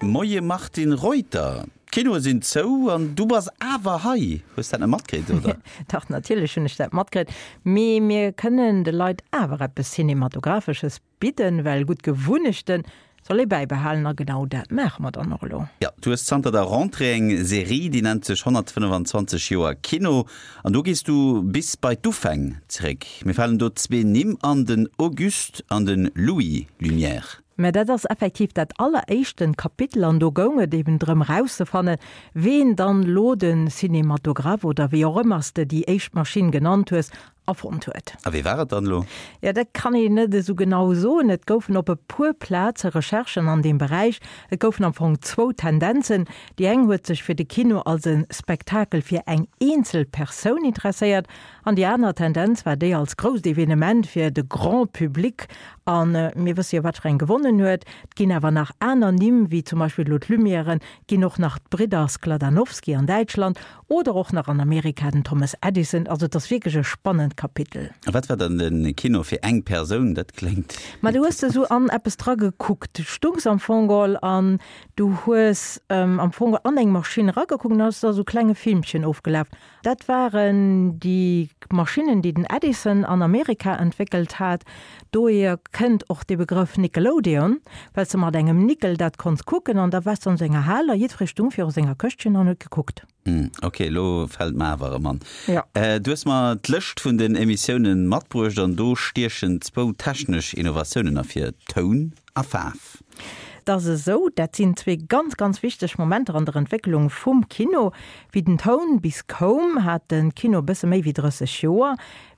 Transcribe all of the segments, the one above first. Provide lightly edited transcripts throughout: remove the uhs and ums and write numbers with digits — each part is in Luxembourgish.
Moie Martine Reuter, d'Kinoe sinn zou an du bass awer hei. Hues dat net matkritt, oder? Dach, natierlech hunn ech dat matkritt. Mee mir kënnen de Leit awer eppes Cinematographesches bidden, well gutt Gewunnechte soll ee bäibehalen a genau dat maache mer dann och elo. Jo, du hues zanter der Rentrée eng Serie, déi nennt sech 125 Joer Kino an do gees du bis bei d'Ufäng zeréck. Mir falen do zwee Nimm an, den Auguste an de Louis Lumière. Mä dat ass effektiv dat alleréischten Kapitel an do goung et eben drëm erauszefannen, ween dann lo de Cinématographe oder wéi och ëmmer s de déi éischt Maschinn genannt hues, erfonnt huet. A wee war et dann elo? Jo, dat kann een net esou genau soen. Et goufen op e puer Plaze Recherchen an deem Beräich. Et goufen am Fong zwou Tendenzen. Déi eng huet sech fir de Kino als e Spektakel fir eng eenzel Persoun interesséiert an déi aner Tendenz war déi als grousst Evenement fir de Grand Public. A mir wësse jo, wat fir eng gewonnen huet. Et ginn awer nach aner Nimm, wéi zum Beispill elo d'Lumièren, et ginn och nach d'Bridder Skladanowsky an Däitschland Oder och nach an Amerika den Thomas Edison. Also et ass wierklech e spannend Kapitel. A wat war dann de Kino fir eng Persoun? Dat kléngt. Ma du hues esou an eppes dra gekuckt. Du stungs am Fong geholl an du hues am Fong geholl an eng Maschinn eragekuckt an da ass da esou klenge Filmchen ofgelaf. Dat waren déi Maschinnen, déi den Edison an Amerika entwéckelt hat. Dohier kënnt och de Begrëff Nickelodeon, well s de mat engem Nickel dat konns kucken an da waars de an sou enger Hal a jiddweree stung viru senger Këschtchen an huet gekuckt. Hm, ok, elo fält mer awer erëm an. Jo. Du hues mer d'Lëscht vun den Emissiounen matbruecht an do stiechen zwou technesch Innovatiounen ervir, Toun a Faarf. Et ass esou, dat sinn zwee ganz, ganz wichteg Momenter an der Entwécklung vum Kino. Wéi den Toun bis koum, hat de Kino e bësse méi wéi 30 Joer.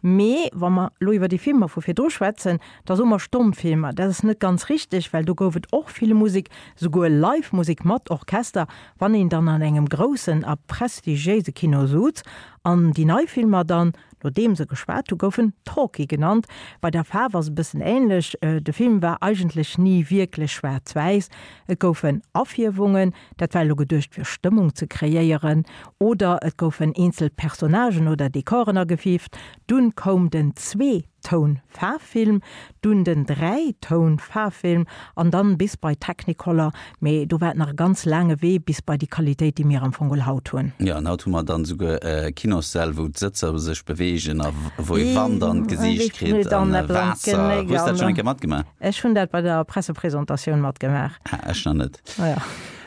Mee wa mer elo iwwer déi Filmer vu virdru schwätzen, da soe mer Stommfilmer. Dat ass net ganz richteg, well do gouf et och vill Musek, souguer Live-Musek mat Orchester, wann een dann an engem groussen a prestigiéise Kino suz. An déi nei Filmer dann, nodeem se geschwat hu, goufen Talkie genannt. Bei der Faarf ass e bëssen änlech, de Film war eigentlech ni wierklech schwaarz-wäiss, et goufen Afierwungen, Dat war elo geduecht fir Stëmmung ze kreéieren oder et goufen eenzel Personnagen oder Dekoren agefiift. Dunn koum den Zwee-Toun-Faarffilm, dunn den Dräi-Toun-Faarffilm an dann bis bei Technicolor. Mee do war et nach e ganz laange Wee bis bei déi Qualitéit, déi mir am Fong haut hunn. Jo, an haut hu mer dann esouguer Kinossäll, wou d'Sëtzer sech beweegen a wou ee Wand an d'Gesiicht kritt an Waasser. Hues dat schonn eng Kéier matgemaach? Ech hunn dat bei der Pressepresentatioun matgemaach. Ah, ech nach net. Ah ja,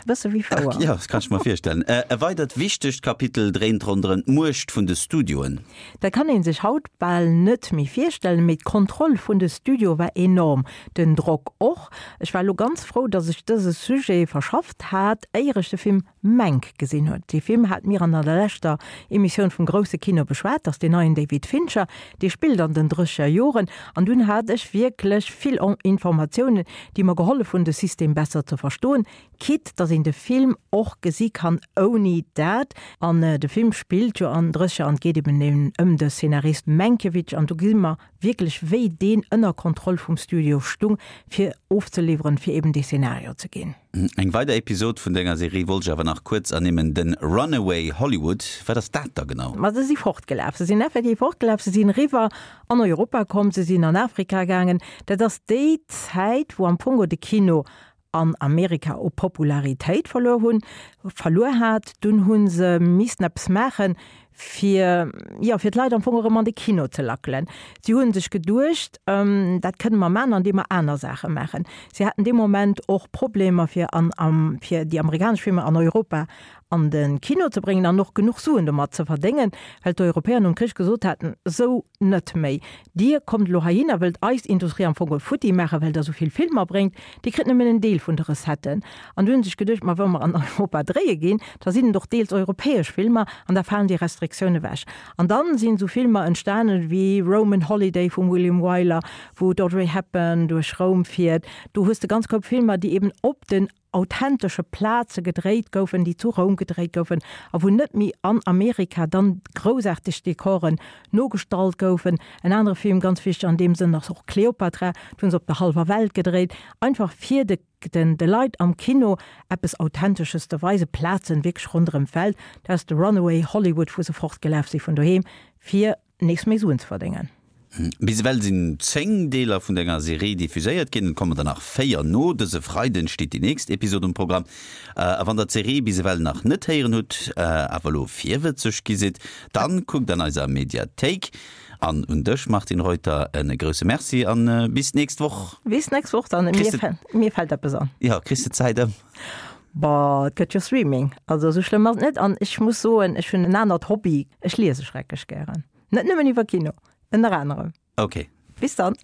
bësse wéi fouer. Jo, dat kann ech mer virstellen. E weidert wichtegt Kapitel dréint ronderëm d'Muecht vun de Studioen. Dat kann ee sech haut bal net méi virstellen, mee d'Kontroll vun de Studioe war enorm, den Drock och. Ech war elo ganz frou, datt ech dëse Sujet verschafft hat, éier ech de Film Mank gesinn huet. Dee Film hate mir an der leschter Emissioun vum grousse Kino beschwat, dat ass deen neien David Fincher, dee spillt an den drësseger Joren. An dunn hat ech wierklech vill Informatiounen, déi mer gehollef hunn, de System besser ze verstoen, quitte datt een de Film och gesi kann ouni dat. An de Film spillt jo an drësseger an et geet eben ëm de Szenarist Mankiewicz an do gesi mer wierklech wéi deen ënner Kontroll vum Studio stung, fir ofzeliwweren, fir eben dee Szenario ze ginn. Eng weider Episod vun denger Serie wollt ech awer nach kuerz ernimmen, den Runaway Hollywood. Wat ass dat da genau? Ma se si fortgelaf, se sinn effektiv fortgelaf, se sinn eriwwer an Europa komm, se sinn an Afrika gaangen. Dat ass déi Zäit, wou am Fong de Kino an Amerika u Popularitéit verluer hunn, verluer hat. Dunn hu se missten eppes maachen, fir, jo, fir d'Leit am Fong erëm an de Kino ze lackelen. Si hu sech geduecht, dat kënne mer maachen, andeem mer aner Saache maachen. Si haten dee Moment och Problemer, fir an, fir déi amerikanesch Filmer an Europa an de Kino ze bréngen an och genuch Suen domat ze verdéngen, well d'Europäer nom Krich gesot haten, Sou net méi, Dir kommt elo heihin a wëllt eis Industrie am Fong futti maachen, well Der esou vill Filmer bréngt, Dir kritt nëmmen en Deel vun de Recetten. An du hunn sech geduecht, Ma wa mer an Europa dréie ginn, da sinn et och deels europäesch Filmer an da falen déi Restriktioune ewech. An dann sinn esou Filmer entstanen wéi Roman Holiday vum William Wyler, wou d'Audrey Hepburn duerch Roum fiert. Do hues de ganz Koup Filmer, déi eben op den authentesche Plaze gedréit goufen, déi zu Roum gedréit goufen a wou net méi an Amerika dann groussaarteg Dekoren nogestallt goufen. En anere Film, ganz wichteg an deem Sënn, ass och Cleopatra, do hunn se op der hallwer Welt gedréit, einfach fir de den de Leit am Kino eppes Authentesches ze weisen, Plazen wierklech ronderëm d'Welt. Dat ass de Runaway Hollywood, wou se fortgelaf si vun doheem, fir nees méi Suen ze verdéngen. Bis ewell sinn 10 Deeler vun denger Serie diffuséiert ginn, et kommen der nach 4 no. Dëse Freiden steet déi nächst Episod um Programm. A wann der d'Serie bis ewell nach net héieren hutt, awer elo virwëtzeg gi sidd, dann kuckt an eiser Mediathéik. An un dech Martine Reuter e grousse Merci an bis d'nächst Woch. Bis d'nächst Woch dann. Mir fält eppes an. Jo, kriss de d'Zäit ëm? Boah, et gëtt jo Streaming, also esou schlëmm ass et net. An ech muss soen, ech hunn en anert Hobby, ech liese schrecklech gären. Net nëmmen iwwer Kino, ënner anerem. Ok. Bis dann.